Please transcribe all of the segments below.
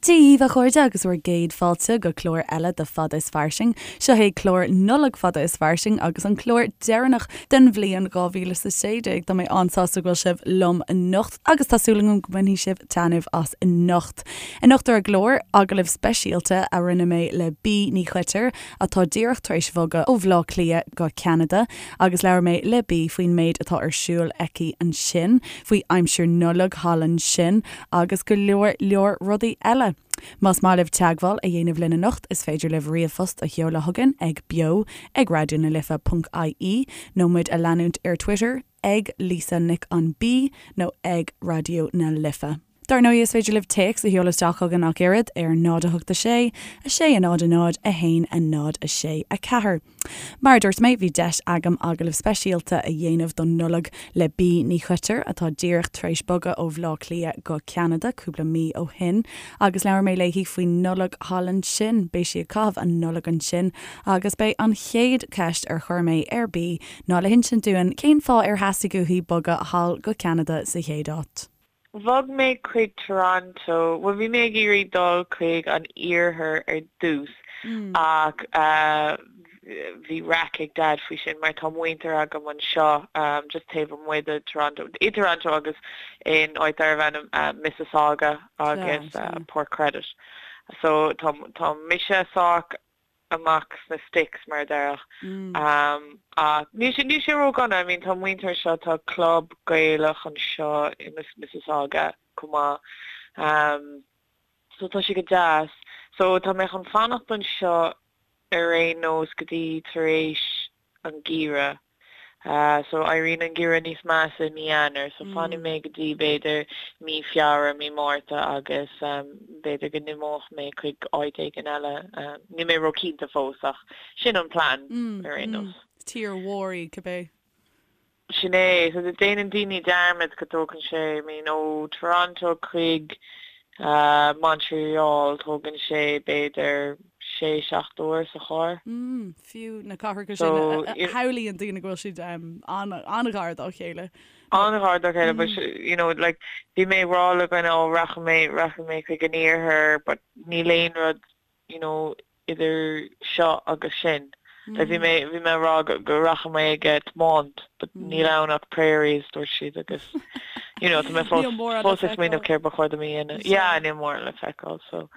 Dia dhaoibh a chairde agus bhur gcéad fáilte go clár eile de Fada is Fairsing. Seo é clár Nollag Fada is Fairsing agus an clár deireanach den bhliain 2016. Tá mé an-sásta go bhfuil sibh liom anocht agus tá súil agam go mbainfidh sibh taitneamh as anocht. Anocht ar an gclár, agallamh speisialta a rinne mé le Bee Ní Choitir atá díreach tar éis bhogadh ó Bhleá Cliath go Ceanada agus labhair mé le Bee faoin méid atá ar siúl aici ansin, faoi aimsir Nollag thall ansin agus go leor leor rudaí eile. Más maith libh teagmháil a dhéanamh linn anocht is féidir libh ríomhphost a sheoladh chugainn ag beo ag raidió na life ponc ie nó muid a leanúint ar Twitter ag Lisa Nic an B nó ag Raidió na Life. Dar ndóigh is féidir libh téacs a sheoladh isteach chugainn ach oiread ar 0 8 6 6 0 0 1 0 6 4. Mar a dúirt mé, bhí deis agam agallamh speisialta a dhéanamh don Nollaig le Bee Ní Choitir, atá díreach tar éis bogadh ó Bhleá Cliath go Ceanada cúpla mí ó shin, agus labhair mé léi faoin Nollaig thall ansin. Beidh sí ag caitheamh an Nollaig ansin agus b'é an chéad cheist ar chuir mé ar Bee ná le hinsint dúinn cén fáth ar theastaigh uaithi bogadh thall go Ceanada sa chéad áit. Bhog mé chuig Toronto, bhuel bhí mé ag iarraidh dul chuig an iarthar ar dtús ach bhí raic ag Dad faoi sin mar tá muintir agam anseo just taobh amuigh de Toronto, i Toronto agus in áit darbh ainm Mississauga agus Port Credit. So tá tá mise sách amach sna sticks mar a déarfá. Ach níl sé níl sé ró-dhona, I mean tá muintir anseo, tá club Gaelach anseo i Mississauga chomh maith. So tá sé go deas. So tá mé chun fanacht anseo ar aon nós go dtí tar éis an geimhreadh. So éiríonn an geimhreadh níos measa i mí Eanáir, so fanfaidh mé go dtí b'fhéidir mí Feabhra, mí Márta agus b'fhéidir go n-imeoidh mé chuig áit éigin eile. Níl mé ró-chinnte fós ach sin an plean ar aon nós. Tír mhór í cibé. Sin é. So déanann daoine dearmad go dtógann sé, I mean ó Toronto chuig Montreal tógann sé b'fhéidir sé, 7 uair sa charr. Mm, fiú na cathracha sin a shamhlaíonn daoine go bhfuil siad an-ghar dá chéile. An-ghar dá chéile, but you know, like, bhí mé ag rá le dhuine, oh, rachaidh mé, rachaidh mé chuig an iarthar, but níl aon rud, you know, idir seo agus sin. Like, bhí mé, bhí mé ag rá go, go rachaidh mé ag tiomáint, but níl ann ach prairies, dúirt siad, agus, you know, tá mé fós, fós ag smaoineamh céard ba chóir dom a dhéanamh. Yeah, níl mórán le feiceáil, so.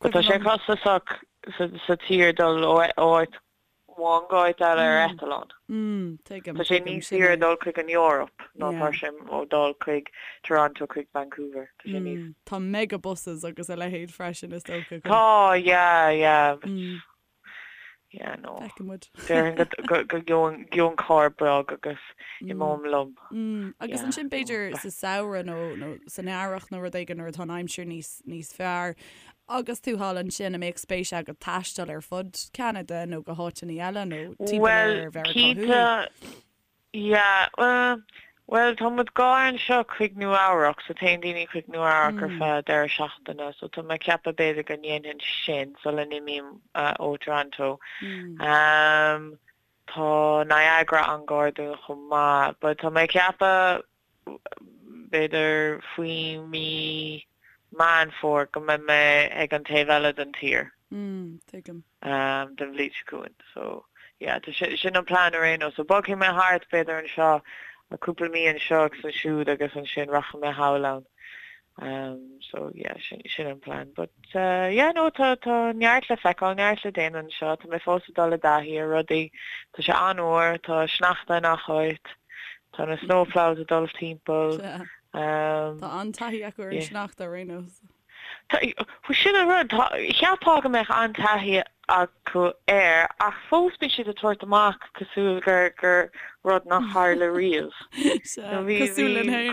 But tá sé costasach sa tír dul ó áit amháin go áit eile ar eitleán. Tá sé níos saoire dul chuig an Eoraip ná tá sé ó dul chuig Toronto chuig Vancouver. Tá sé níos. Tá mega buses agus a leithéid freisin is dócha. Tá, yeah, yeah. Yeah, no. Feicfidh muid. Déarfainn go go gheobhainn carr beag agus imeoim liom. Agus ansin b'fhéidir sa samhradh nó nó san earrach nó rud éigin nuair atá an aimsir níos níos fearr agus tú thall ansin, an mbeadh spéis agat taisteal ar fud Cheanada nó go háiteanna eile nó timpeall ar Mheiriceá Thuaidh? Well, cinnte, Yeah, bhuel, tá muid gar anseo chuig Nua Eabhrac, so téann daoine chuig Nua Eabhrac ar feadh deireadh seachtaine, so tá mé ag ceapadh b'fhéidir go ndéanfainn sin sula n-imím ó Toronto. Tá Niagara an-ghar dúinn chomh maith, but tá mé ag ceapadh b'fhéidir faoi mí Meán Fómhair go mbeidh mé ag an taobh eile den tír. Tuigim. den bhliain seo chugainn. So, yeah, tá sin, sin an plean ar aon nós. So bogfaidh mé thart, b'fhéidir anseo, cúpla mí anseo agus ansiúd agus ansin rachaidh mé thall ann. Um, so, yeah, sin, sin an plean. But, uh, yeah, no, tá, tá neart le feiceáil, neart le déanamh anseo. Tá mé fós ag dul i dtaithí ar rudaí. Tá sé an-fhuar, tá sneachta in gach áit. Tá na snow plows ag dul timpeall. Um, Tá an-taithí acu ar an sneachta ar aon nós. Sin an rud, cheapfá go mbeadh an-taithí acu air ach fós bíonn siad ag tabhairt amach cosúil gur gur rud nach tharla riamh. Bhí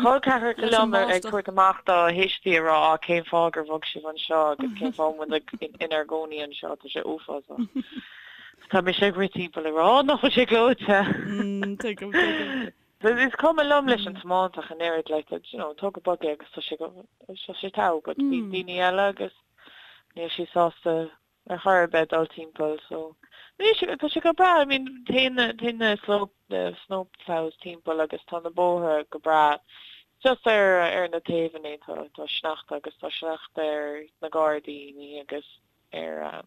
col ceathracha liom ag tabhairt amach dá thuistí ag rá á cén fáth gur bhog sibh anseo agus cén fáth muid inár gcónaí anseo, tá sé uafásach. Tá mise ag rith timpeall ag rá nach bhfuil sé gleoite. Tuigim, tuigim. Is cuma liom leis an tiomáint ach an oiread, like, you know, tóg go bog é agus tá sé go, tá sé togha, but bhí daoine eile agus níl siad sásta ar chor ar bith dul timpeall, so níl sé, tá sé go breá, I mean, téann na, téann na slope, na snow plows timpeall agus tá na bóithre go breá. Just ar ar na taobhanna tá tá sneachta agus tá sneachta ar na gairdíní agus ar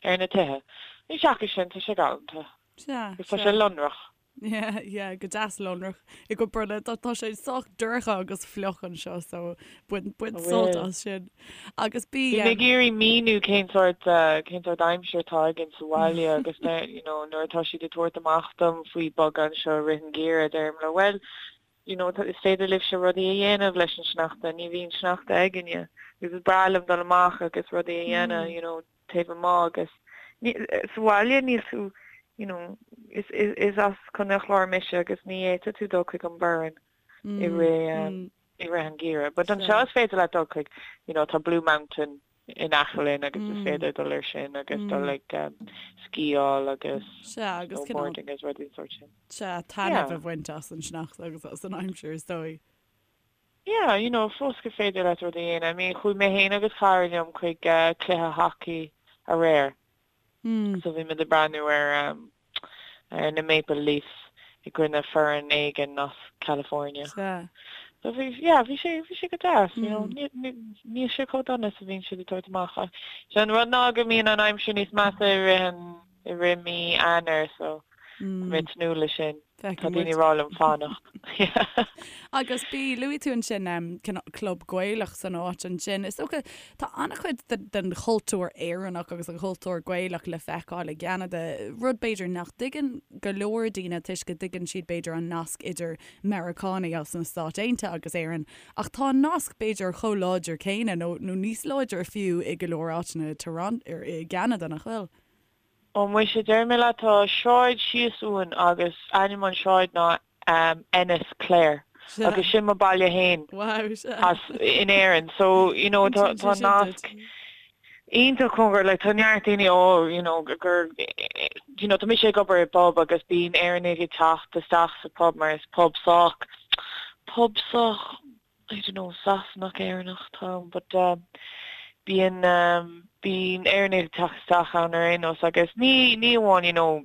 ar na tithe. Ní seachas sin tá sé galánta. Sea, Agus tá sé lonrach. Yeah, yeah, go deas lonrach i gCoill Brunna. Tá tá sé sách dorcha agus fliuch anseo so bain bain sult as sin. Agus bí Bhí mé ag iarraidh míniú cén sórt cén sórt aimsir atá againn sa bhaile agus you know nuair atá siad ag tabhairt amach dom faoi bogadh anseo i rith an gheimhridh deirim leo bhuel you know is féidir libhse rudaí a dhéanamh leis an sneachta, ní bhíonn sneachta againne agus is breá liom dul amach agus rudaí a dhéanamh you know taobh amuigh agus sa bhaile níl tú you know is is is as Contae an Chláir mise agus ní fhéadfadh tú dul chuig an Burren i rith i rith an gheimhridh but anseo is féidir leat dul chuig you know tá Blue Mountain in aice linn agus is féidir dul air sin agus dul ag sciáil agus snowboarding agus rudaí den sórt sin. Sea, taitneamh a bhaint as an sneachta agus as an aimsir is dóigh. Yeah, you know, fós gur féidir leat rudaí a dhéanamh. I mean, chuaigh mé féin agus cara liom chuig cluiche hacaí aréir. So bhí muid ag breathnú ar ar na Maple Leafs i gcoinne foireann éigin as California. Sea. So bhí, yeah, bhí sé, bhí sé go deas, you know, níl sé chomh dona is a bhíonn siad ag tabhairt amach. Ach sé an rud ná go mbíonn an aimsir níos measa i rith an, i rith mí Eanáir, so tá mé ag tnúth leis sin. Tá daoine ag rá liom fanacht. Agus bí, luaigh tú ansin cineál club Gaelach san áit ansin. Is dócha, tá an-chuid den chultúr Éireannach agus an chultúr Gaelach le feiceáil i gCeanada, rud b'fhéidir nach dtuigeann go leor daoine toisc go dtuigeann siad b'fhéidir an nasc idir Meiriceánaigh as na Stáit Aontaithe agus Éirinn, ach tá an nasc b'fhéidir chomh láidir céanna nó níos láidre fiú i go leor áiteanna i gCeanada, nach bhfuil? Ó muise, déarfaidh mé leat, tá sráid síos uainn agus ainm an sráid ná Ennis Clare agus sin mo baile fhéin as in Éirinn so you know tá tá nasc iontach cóngarach like tá neart daoine ó you know gur you know tá mise ag obair i bpub agus bíonn Éireannaigh ag teacht isteach sa pub mar is pub sách pub sách I don't know, Sasanach, Éireannach atá ann but bíonn bíonn Éireannaigh ag teacht isteach ann ar aon nós agus ní ní amháin you know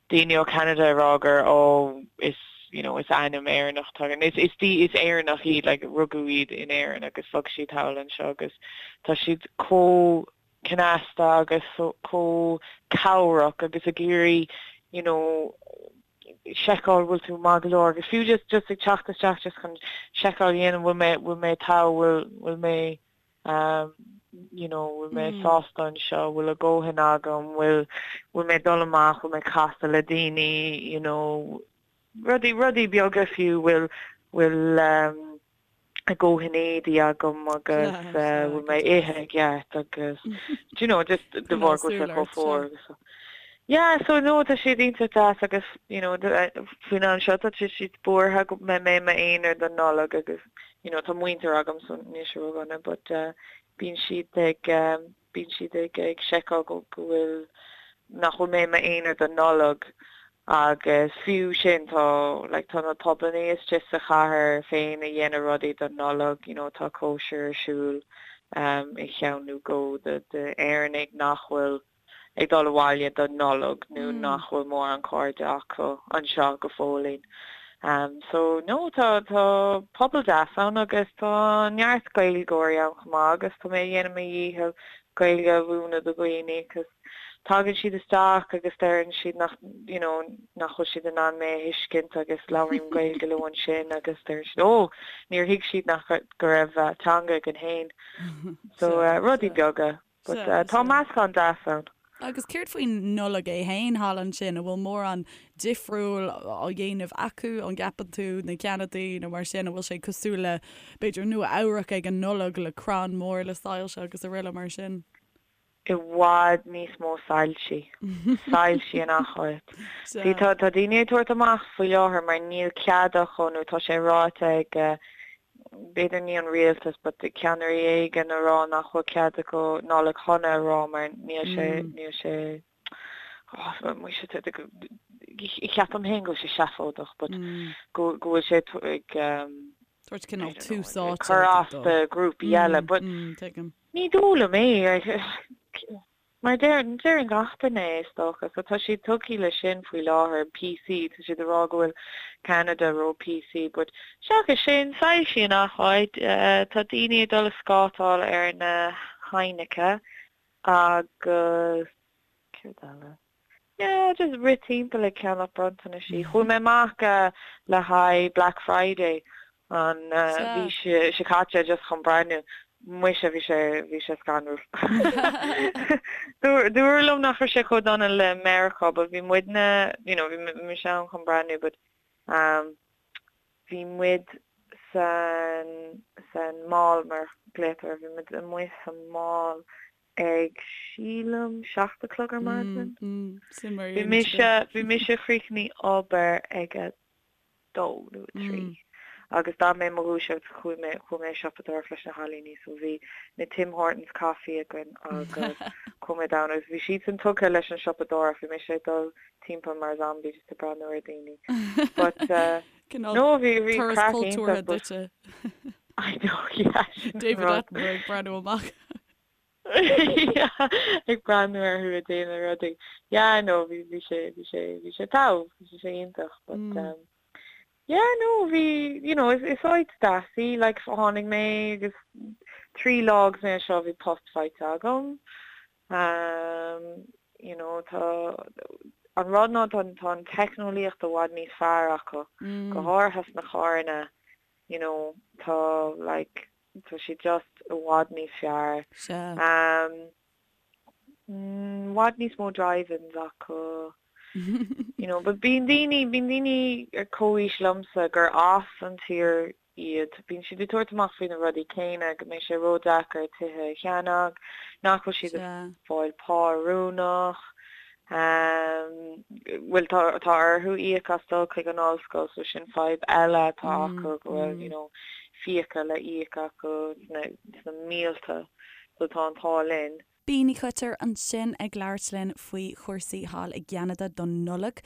daoine ó Canada ag rá gur oh is you know is ainm Éireannach atá againn. Is is is Éireannach iad like rugadh iad in Éirinn agus bhog siad thall anseo agus tá siad chomh cneasta agus chomh cabhrach agus ag iarraidh you know seiceáil bhfuil tú maith go leor agus fiú just just ag teacht isteach just chun seiceáil a dhéanamh bhfuil mé bhfuil mé togha bhfuil bhfuil mé um you know bhfuil mé sásta anseo bhfuil a dhóthain agam bhfuil bhfuil mé dul amach bhfuil mé casadh le daoine you know rudaí rudaí beaga fiú bhfuil bhfuil um a dhóthain éadaí agam agus bhfuil mé ag ithe i gceart agus do you know just de bharr go bhfuil sé chomh fuar agus yeah so no tá siad iontach deas agus you know faoin am seo tá siad buartha go mbeidh mé i m'aonar don Nollaig agus you know tá muintir agam so níl sé ródhona but bíonn siad ag bíonn siad ag ag seiceáil go go bhfuil nach bhfuil mé i m'aonar don Nollaig Agus fiú sin tá like tá na pubannaí istigh sa chathair féin ag déanamh rudaí don Nollaig, you know tá cóisir ar siúl um i cheann nó dhó de d'Éireannaigh nach bhfuil ag dul abhaile don Nollaig nó nach bhfuil mórán cairde acu anseo go fóillín. Um so no tá tá pobal deas ann agus tá neart Gaeilgeoirí ann chomh maith agus tá mé ag déanamh mo dhícheall Gaeilge a mhúineadh do dhaoine 'cause tagann siad isteach agus deireann siad nach you know nach bhfuil siad in ann mé a thuiscint agus labhraím Gaeilge leo ansin agus deireann siad oh níor thuig siad nach go raibh teanga againn féin. So rudaí beaga but tá meascán deas ann. Agus céard faoin Nollaig é féin thall ansin, an bhfuil mórán difriúil á dhéanamh acu, an gceapann tú, na Ceanadaigh nó mar sin, an bhfuil sé cosúil le b'fhéidir Nua Eabhrac ag an Nollaig le crann mór le soilse agus araile mar sin? i bhfad níos mó soilsí. Soilsí in achan áit. See, tá, tá daoine ag tabhairt amach faoi láthair mar níl cead acu nó tá sé ráite ag, b'fhéidir ní an rialtas but ceannairí éigin a rá nach bhfuil cead acu Nollaig Shona a rá mar níl sé, níl sé, oh, muise, ceapaim féin go bhfuil sé seafóideach but go, go bhfuil sé ag, Tabhairt cineál tús áite cur as do grúpaí eile but ní dóigh liom é. Mar deireann, deireann gach duine é is dócha. So tá siad tugtha le sin faoi láthair, PC, tá siad ag rá go bhfuil Ceanada ró PC but seachas sin, soilsí i ngach áit, tá daoine ag dul ag scátáil ar na haibhneacha agus céard eile? Yeah, just rith timpeall ag ceannach bronntanaisí. Chuaigh mé amach le haghaidh Black Friday an mhí seo caite just chun breathnú. Muise, bhí sé, bhí sé scanrúil. Dúradh liom nach raibh sé chomh dona le Meiriceá but bhí muidne, you know, bhí mise ann chun breathnú but bhí muid san, san mall mar glaotar, bhí muid amuigh sa mall ag, sílim, 7 a chlog ar maidin. Bhí mise, bhí mise chríochnaigh obair ag a dó nó a trí agus d'fhan mé i mo dhúiseacht chuaigh mé, chuaigh mé ag siopadóireacht leis na cailíní so bhí na Tim Hortons coffee againn agus chuaigh mé down agus bhí siadsan tugtha leis an siopadóireacht, bhí mise ag dul timpeall mar zombie just ag breathnú ar daoine. But no bhí, bhí craic iontach but I know yeah sin an David rud. Attenborough ag breathnú amach. Yeah ag breathnú orthu ag déanamh rudaí. Yeah no bhí bhí sé bhí sé bhí sé togha bhí sé iontach but um yeah no bhí you know is is áit deas í like tháinig mé agus 3 lá agus mé anseo bhí post faighte agam um you know tá an rud ná tá tá an teicneolaíocht i bhfad níos fearr acu go háirithe sna carranna you know tá like tá sé just i bhfad níos fearr. Sea. I bhfad níos mó drive-ins acu. You know, but bíonn daoine, bíonn daoine ar comhaois liomsa gur as an tír iad, bíonn siad ag tabhairt amach faoi na rudaí céanna, go mbeidh sé ródheacair tithe a cheannach, nach bhfuil siad ag fáil pá oiriúnach. Bhuel tá tá orthu íoc as dul chuig an ollscoil so sin fadhb eile atá acu go bhfuil you know fiacha le íoc acu sna sna mílte so tá an t-ádh linn. Bea Ní Choitir ansin ag labhairt linn faoi chúrsaí thall i gCeanada don Nollaig.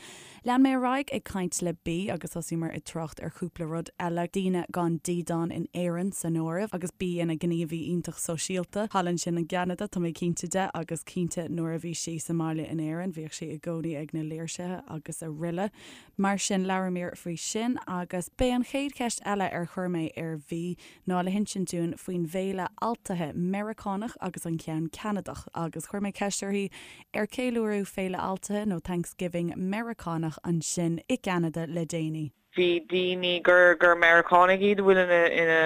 Lean mé ar aghaidh ag caint le Bea agus thosaíomar ag trácht ar chúpla rud eile, daoine gan dídean in Éirinn san áireamh, agus Bea ina gníomhaí iontach sóisialta thall ansin i gCeanada, tá mé cinnte de, agus cinnte nuair a bhí sí sa mbaile in Éirinn, bhíodh sí i gcónaí ag na léirsithe agus araile. Mar sin, labhramar faoi sin agus b'é an chéad cheist eile ar chuir mé ar Bhea ná le hinsint dúinn faoin bhféile Altaithe Meiriceánach agus an ceann Ceanadach agus chuir mé ceist uirthi ar ceiliúradh Féile Altaithe nó Thanksgiving Meiriceánach ansin i gCeanada le déanaí. Bhí daoine gur gur Meiriceánaigh iad a bhfuil ina ina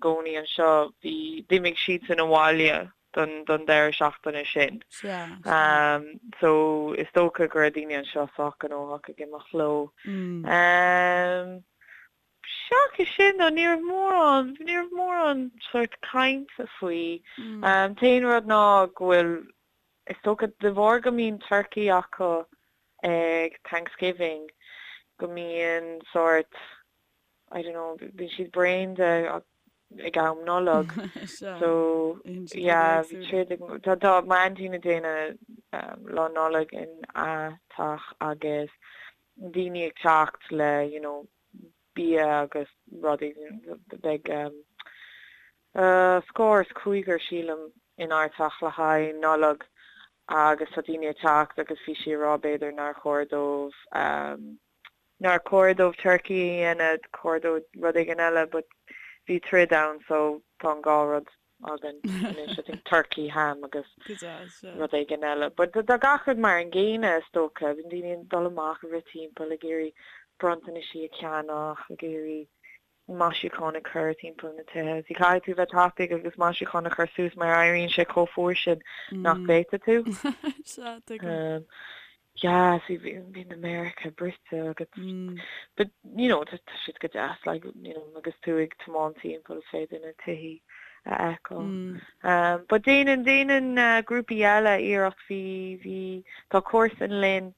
gcónaí anseo, bhí, d'imigh siadsan abhaile don don deireadh seachtaine sin. Sea, sea. So is dócha go raibh daoine anseo sách gnóthach ag imeacht leo. Seachas sin though, ní raibh mórán, ní raibh mórán sórt cainte faoi. An t-aon rud ná go bhfuil, is dócha de bharr go mbíonn turcaí acu ag Thanksgiving, go mbíonn sórt, I don't know, bíonn siad bréan de ag am Nollag. So, yeah, bhí troid ag, tá, tá m'aintín ag déanamh Lá Nollag ina teach agus daoine ag teacht le you know bia agus rudaí beidh scór is cúigear sílim inár teach le haghaidh Nollag agus tá daoine ag teacht agus bhí sí ag rá b'fhéidir nár chóir dóibh nár chóir dóibh turcaí a dhéanamh chóir dóibh rud éigin eile but bhí troid ann so tá an dhá rud againn anois I think turkey, ham agus rud éigin eile. But tá gach rud mar an gcéanna is dócha, bíonn daoine ag dul amach ag rith timpeall ag iarraidh bronntanaisí a cheannach, ag iarraidh maisiúcháin a chur timpeall na tithe. See caithfidh tú bheith tapaidh agus maisiúcháin a chur suas mar éiríonn sé chomh fuar sin nach bhféadfaidh tú. Sea, tuigim. Yeah, see bíonn America bruite agat. But, you know, tá siad go deas, like, you know, agus tú ag tiomáint timpeall is féidir na tithí a fheiceáil. Um, but déanann, déanann uh, grúpaí eile iarracht bhí, bhí, tá comharsan linn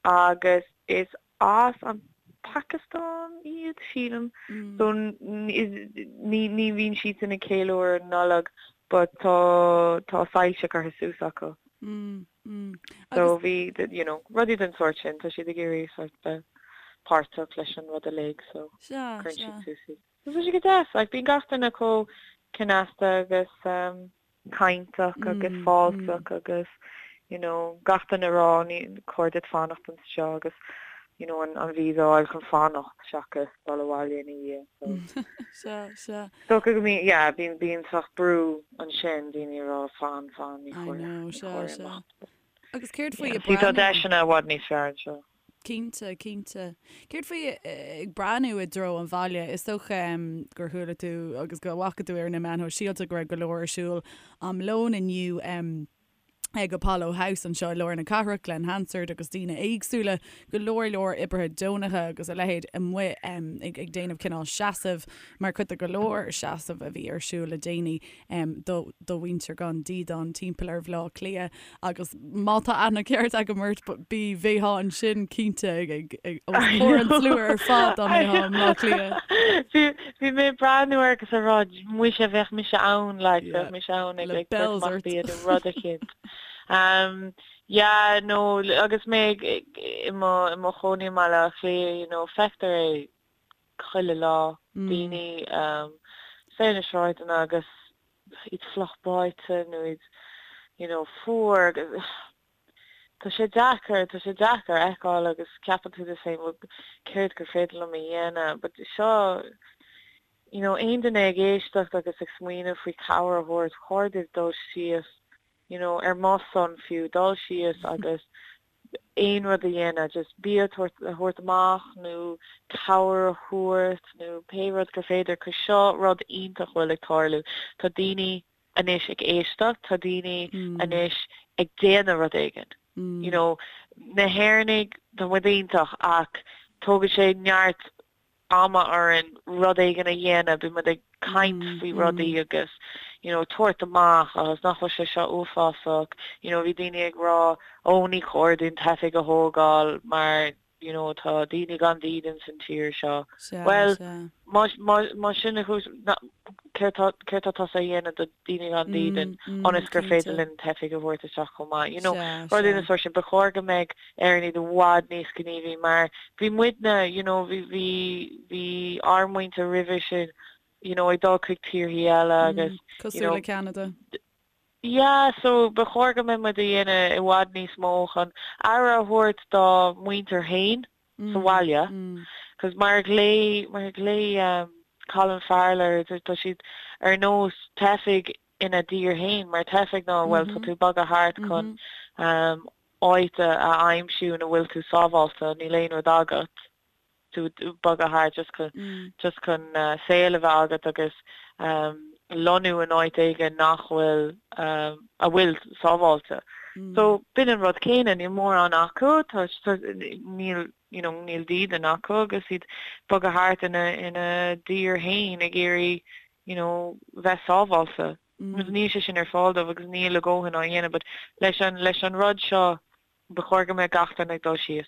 agus is as an Phacastáin iad, sílim. So ní, ní bhíonn siadsan ag ceiliúradh Nollag but tá, tá soilse curtha suas acu. So bhí, you know, rudaí den sórt sin, tá siad ag iarraidh sort bheith páirteach leis an rud uilig so cuireann siad suas iad. So tá sé go deas, like bíonn gach duine chomh cneasta agus cainteach agus fáilteach agus. you know, gach duine ag rá ní chóir duit fanacht anseo agus you know an an visa a fháil chun fanacht seachas dul abhaile ina dhiaidh so. Sea, sea. Is dócha go mbíonn, yeah, bíonn bíonn sórt brú ansin, daoine ag rá fan, fan, ní I chóir, know, ní sea, chóir sea. imeacht. Agus céard faoi Yeah, ag see tá breathnú? deiseanna i bhfad níos fearr anseo. Cinnte, cinnte. Céard faoi ag breathnú i dtreo an bhaile? Is dócha gur chuala tú agus go bhfaca tú ar na meáin shóisialta go raibh go leor ar siúl am lóin inniu ag Apollo House anseo i lár na cathrach, Glen Hansard agus daoine éagsúla, go leor leor oibrithe deonacha agus a leithéid amuigh ag déanamh cineál seasaimh mar chuid de go leor seasamh a bhí ar siúl le déanaí do mhuintir gan dídean timpeall ar Bhaile Átha Cliath. Agus má tá aithne ceart agam ort, bí, bheifeá ansin cinnte ag os comhair an tslua ar fad dá mbeifeá i mBleá Cliath. Bhí bhí mé ag breathnú air agus ag rá muise bheadh mise ann like Yeah, bheadh mise ann ag le ag tabhairt bells amach ort. bia nó rud eicínt. Um, yeah, no, agus mé ag ag i mo i mo chónaí i mBaile Átha Cliath, you know, feictear é chuile lá, daoine um, ar na sráideanna agus iad fliuch báite nó iad you know fuar agus tá sé deacair, tá sé deacair a fheiceáil agus ceapann tú duit féin bhuel céard gur féidir liom a dhéanamh but seo you know aon duine ag éisteacht agus ag smaoineamh faoi cabhair a thabhairt, chóir daoibh dul síos you know ar mo son fiú, dul síos agus aon rud a dhéanamh, just bia a thabhairt amach nó cabhair a thabhairt nó pé rud gur féidir, 'cause seo rud iontach a bhfuil ag tarlú. Tá daoine anois ag éisteacht, tá daoine anois ag déanamh rud éigin. You know, na hÉireannaigh, tá muid iontach ach tógann sé neart ama orainn rud éigin a dhéanamh, bíonn muid ag caint faoi rudaí agus you know tabhairt amach agus nach bhfuil sé seo uafásach, you know bhí daoine ag rá ó ní chóir dúinn teifigh a thógáil mar you know tá daoine gan dídean san tír seo. Bhuel má má sin an chúis céard tá céard tá tusa a dhéanamh do daoine gan dídean ionas gur féidir linn teifigh a thabhairt isteach chomh maith. You know, rudaí den sórt sin. Ba chóir go mbeadh Éireannaigh i bhfad níos gníomhaí mar bhí muidne, you know, bhí, bhí, bhí ár muintir roimhe sin, you know, ag dul chuig tíorthaí eile agus, you Cosúil know, le Ceanada. yeah, so ba chóir go mbeadh muid a dhéanamh i bhfad níos mó chun aire a thabhairt dá muintir féin sa bhaile. Cos mar a ghlaoigh, mar a ghlaoigh um, Colin Farrell air, tá siad ar nós teifigh ina dtír féin, mar teifigh ná, bhuel, tá tú ag bogadh thart chun um, áit a aimsiú ina bhfuil tú sábháilte, níl aon rud agat, tú ag bogadh thart just chun, just chun saol a bheith agat agus lonnú in áit éigin nach bhfuil, a bhfuil sábháilte. So b'in an rud céanna, níl mórán acu, tá, níl, you know, níl dídean acu agus iad ag bogadh thart ina, ina dtír féin ag iarraidh, you know, bheith sábháilte. Agus níl sé sin ar fáil dóibh agus níl a dhóthain á dhéanamh but leis an leis an rud seo ba chóir go mbeadh gach duine ag dul síos.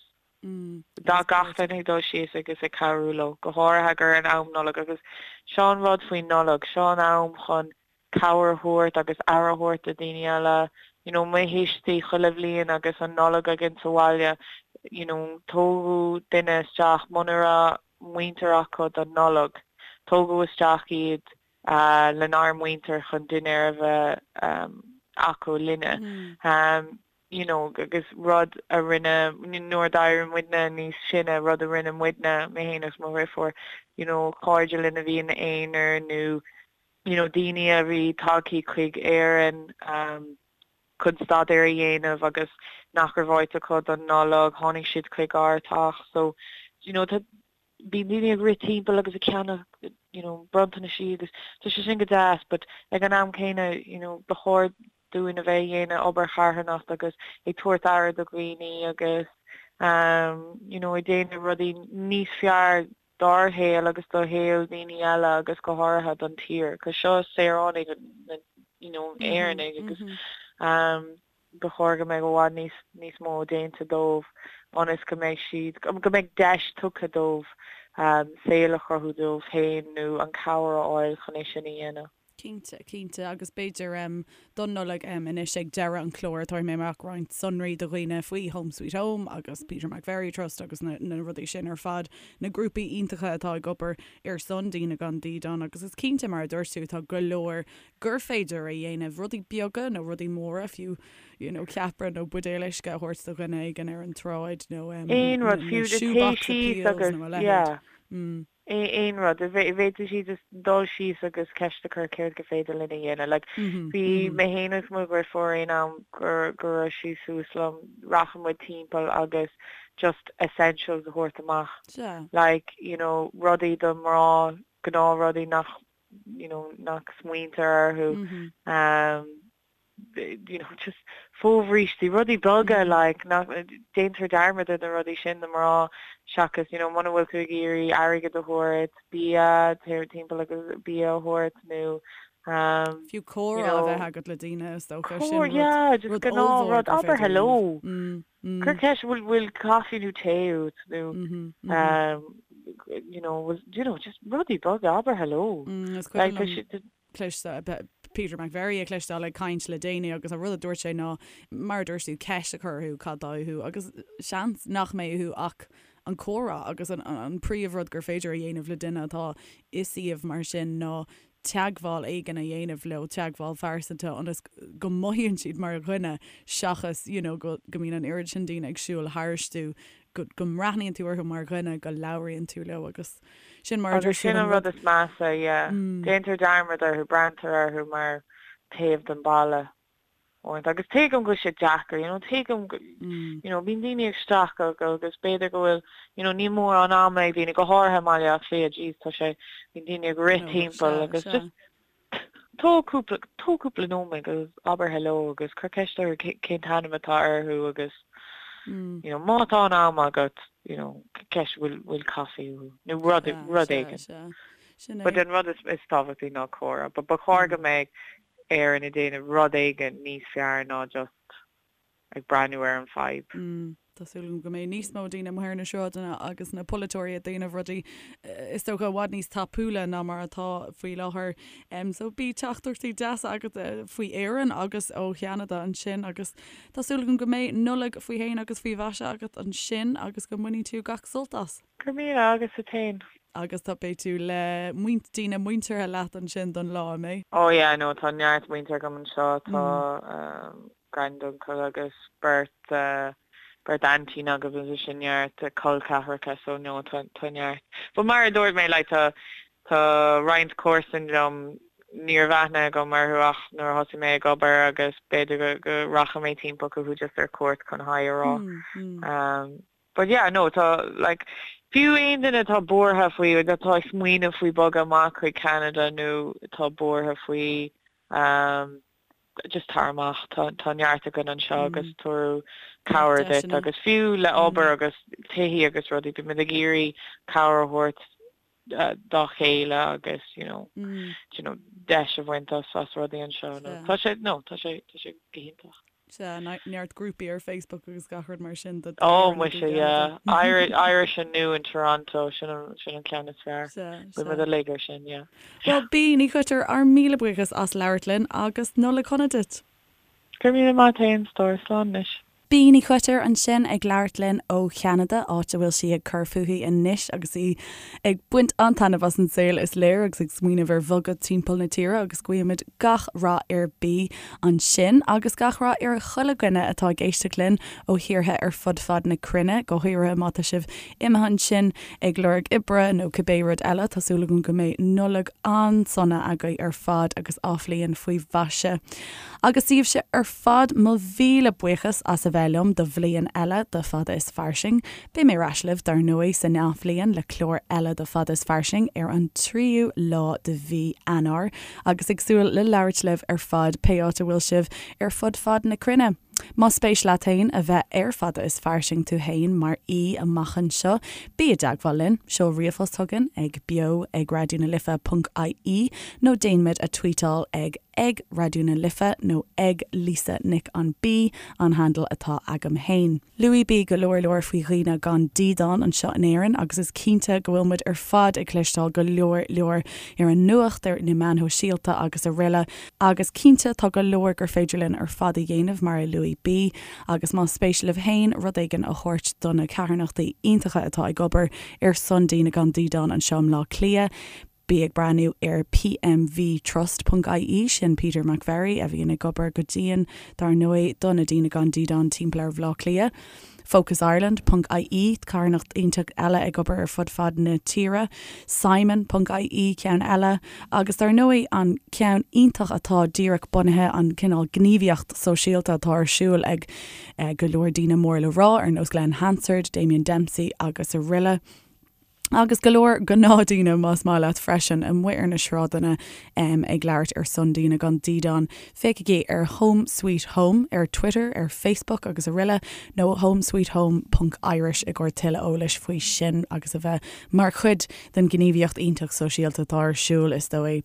Dá gach duine ag dul síos agus ag cabhrú leo, go háirithe gur in am Nollag agus seo an rud faoin Nollaig, seo an am chun cabhair a thabhairt agus aire a thabhairt do daoine eile. You know, mo thuistí chuile bhliain agus an Nollaig againn sa bhaile, you know, tógadh duine isteach muna raibh muintir acu don Nollaig, tógadh isteach iad lenár muintir chun dinnéar a bheith acu linne. You know, agus rud a rinne, nuair a d'éirigh muidne níos sine, rud a rinne muidne, mé féin agus mo dheirfiúr, you know, cairde linn a bhí ina aonar nó, you know, daoine a bhí tagthaí chuig Éirinn chun staidéar a dhéanamh agus nach raibh áit acu don Nollaig, tháinig siad chuig ár teach. So, you know, tá, bíonn daoine ag rith timpeall agus ag ceannach you know bronntanaisí agus tá sé sin go deas but ag an am céanna you know ba chóir dúinn a bheith ag dhéanamh obair charthanacht agus ag tabhairt aire do dhaoine agus um you know ag déanamh rudaí níos fearr dár shaol agus do shaol daoine eile agus go háirithe don tír 'cause seo saoránaigh na you know Éireannaigh agus um ba chóir go mbeadh i bhfad níos níos mó déanta dóibh ionas go mbeidh siad, go mbeidh deis tugtha dóibh saol a chruthú dóibh féin nó an cabhair a fháil chun é sin a dhéanamh. Cinnte, cinnte, agus b'fhéidir don Nollaig anois ag deireadh an chláir tabharfaidh mé amach roinnt sonraí do dhaoine faoi Home Sweet Home agus Peter McVerry Trust agus na rudaí sin ar fad, na grúpaí iontacha atá ag obair ar son daoine gan dídean agus is cinnte mar a dúirt tú tá go leor gur féidir a dhéanamh, rudaí beaga nó rudaí móra fiú, you know ceapaire nó buidéal uisce a thabhairt do dhuine éigin ar an tsráid nó Aon rud, fiú na shoebox appeals nó a leithéid. Aon rud. Bhféadfadh siad just dul síos agus ceist a chur céard gur féidir linn a dhéanamh. Like, bhí mé féin agus mo dheirfiúr aon am go go raibh sí suas liom, rachadh muid timpeall agus just essentials a thabhairt amach. Like, you know, rudaí do mná, gnáthrudaí nach, you know, nach smaointear orthu. Um, you know, just fobhrístí, rudaí beaga like, nach, déantar dearmad ar na rudaí sin do mná seachas, you know, muna bhfuil tú ag iarraidh airgead a thabhairt, bia, téir timpeall agus bia a thabhairt nó um, Fiú comhrá a bheith agat le daoine is dócha, sin rud, yeah, just rud ollmhór gur abair hello. Cuir ceist bhfuil bhfuil caife nó tae uait nó um, you know, you know, just rudaí beaga, abair hello. Is cuimhin liom cloisteáil, Peter McVerry a chloisteáil ag caint le déanaí agus an rud a dúirt sé ná, mar a dúirt tú, ceist a chur orthu cad tá uathu agus seans nach mbeidh uathu ach an comhrá agus an an príomhrud gur féidir a dhéanamh le duine atá i suíomh mar sin ná teagmháil éigin a dhéanamh leo, teagmháil phearsanta ionas go mothaíonn siad mar dhuine seachas you know go go mbíonn an oiread sin daoine ag siúl tharstu go go mbreathnaíonn tú orthu mar dhuine, go labhraíonn tú leo agus sin mar a Agus sin an rud is measa, yeah. Déantar dearmad orthu, breathnaítear orthu mar taobh den bhalla uaireanta. Agus tuigim go bhfuil sé deacair, you know, tuigim go, you know, bíonn daoine ag streachailt agus b'fhéidir go bhfuil, you know, níl mórán ama ag daoine, go háirithe i mBaile Átha Cliath, jeez, tá sé, bíonn daoine ag rith timpeall agus just, Tóg cúpla, tóg cúpla nóiméad agus abair hello agus cuir ceist orthu cén t-ainm atá orthu agus you know má tá an am agat you know ceist bhfuil bhfuil caife uathu nó rud rud éigin. But an rud is is tábhachtaí ná comhrá. But ba chóir go mbeadh Éirinn ag déanamh rud éigin níos fearr ná just ag breathnú ar an fadhb. Tá súil agam go mbeidh níos mó daoine amuigh ar na sráideanna agus na polaiteoirí ag déanamh rudaí is dócha i bhfad níos tapúla ná mar atá faoi láthair. So bhí teachtaireachtaí deasa agat faoi Éirinn agus ó Cheanada ansin agus tá súil agam go mbeidh Nollaig faoi shéan agus faoi mhaise agat ansin agus go mbainfidh tú gach sult as. Go raibh míle agus duit féin. Agus tá beidh tú le muint daoine muinteartha leat ansin don lá, an mbeidh? Oh yeah no tá neart muintir agam anseo tá granduncle agus beirt beirt aintín agam agus sin neart col ceathracha so no tá tá neart. But mar a dúirt mé like tá tá roinnt comharsan liom ní raibh aithne agam orthu ach nuair a thosaigh mé ag obair agus b'fhéidir go go rachaidh mé timpeall chucu just ar cuairt chun hi a rá. But yeah, no, tá, like, fiú aon duine atá buartha faoi, atá ag smaoineamh faoi bogadh amach chuig Ceanada nó atá buartha faoi, um, just tar amach, tá, tá neart againn anseo agus tabharfaidh cabhair duit agus fiú le obair agus tithí agus rudaí, bímid ag iarraidh cabhair a thabhairt dá chéile agus, you know, you know, deis a bhaint as, as rudaí anseo. No, tá sé, no, tá sé, tá sé go hiontach. Sea, neart grúpaí ar Facebook agus gach rud mar sin do Oh, muise, yeah. Irish, Irish and New in Toronto, sin an, sin an ceann is fearr. Sea, sea. Bhí muid uilig ar sin, yeah. Bhuel, Bea Ní Choitir, ár míle buíochas as labhairt linn agus Nollaig shona duit. Go raibh míle maith agat féin, a stór, slán anois. Bea Ní Choitir ansin ag labhairt linn ó Cheanada, áit a bhfuil sí ag cur fúithi anois agus í ag baint an-taitneamh as an saol is léir agus ag smaoineamh ar bhogadh timpeall na tíre agus guímid gach rath ar Bea ansin agus gach rath ar chuile dhuine atá ag éisteacht linn ó thíortha ar fud fad na cruinne, go háirithe má tá sibh imithe ansin ag lorg oibre nó cibé rud eile. Tá súil agam go mbeidh Nollaig an-sona agaibh ar fad agus athbhliain faoi mhaise. Agus daoibhse ar fad, mo mhíle buíochas as a bheith liom do bhliain eile de Fada is Fairsing. Beidh mé ar ais libh, dar ndóigh, san athbhliain le clár eile de Fada is Fairsing ar an tríú lá de mhí Eanáir, agus ag súil le labhairt libh ar fad, pé áit a bhfuil sibh ar fud fad na cruinne. Más spéis leat féin a bheith ar Fada is Fairsing tú féin mar aoi amach anseo, bí i dteagmháil linn, seol ríomhphost chugainn ag beo ag raidió na life ponc ie nó déan muid a tweetáil ag. Ag Raidió na Life nó ag Lisa Nic an B an handle atá agam fhéin. Luaigh B go leor leor faoi dhaoine gan dídean anseo in Éirinn agus is cinnte go bhfuil muid ar fad ag cloisteáil go leor leor ar an nuacht, ar na meáin shóisialta agus araile agus cinnte tá go leor gur féidir linn ar fad a dhéanamh mar a luaigh B agus más spéis libh fhéin rud éigin a thabhairt do na carthanachtaí iontacha atá ag obair ar son daoine gan dídean anseo i mBleá Cliath, Bí ag breathnú ar pmvtrust ponc ie, sin Peter McVerry a bhíonn ag obair go dian, dar ndóigh, do na daoine gan dídean timpeall ar Bhleá Cliath. Focus Ireland ponc ie, carthanacht iontach eile ag obair ar fud fad na tíre. Simon ponc ie, ceann eile. Agus dar ndóigh, an ceann iontach atá díreach bunaithe, an cineál gníomhaíocht sóisialta atá ar siúl ag go leor daoine mór le rá, ar nós Glen Hansard, Damien Dempsey agus araile. Agus go leor gnáthdhaoine, más maith leat, freisin, amuigh ar na sráideanna ag labhairt ar son daoine gan dídean. Féachaigí ar Home Sweet Home ar Twitter, ar Facebook agus araile, nó homesweethome ponc irish i gcomhair tuilleadh eolais faoi sin agus a bheith mar chuid den ghníomhaíocht iontach sóisialta atá ar siúl, is dóigh.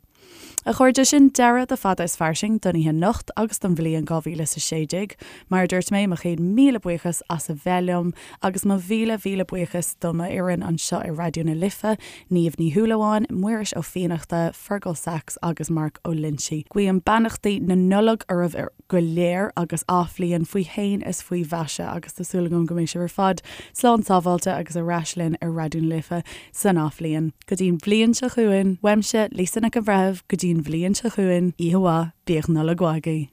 A chairde, sin deireadh de Fada is Fairsing don oíche anocht agus don bhliain 2016. Mar a dúirt mé, mo chéad míle buíochas as a bheith liom agus mo mhíle mhíle buíochas do m'fhoireann anseo ar Raidió na Life, Niamh Ní Shúilleabháin, Muiris Ó Fiannachta, Fergal Sachs agus Mark Ó Loinsigh. Guím beannachtaí na Nollag oraibh go léir agus athbhliain faoi shéan is faoi mhaise agus tá súil agam go mbeidh sibh ar fad slán sábháilte agus ar ais linn ar Raidió na Life san athbhliain. Go dtí'n bhliain seo chugainn, uaimse, Lisa Nic an Bhreithimh, go dtí'n bhliain seo chugainn, oíche mhaith, bíodh Nollaig mhaith agaibh.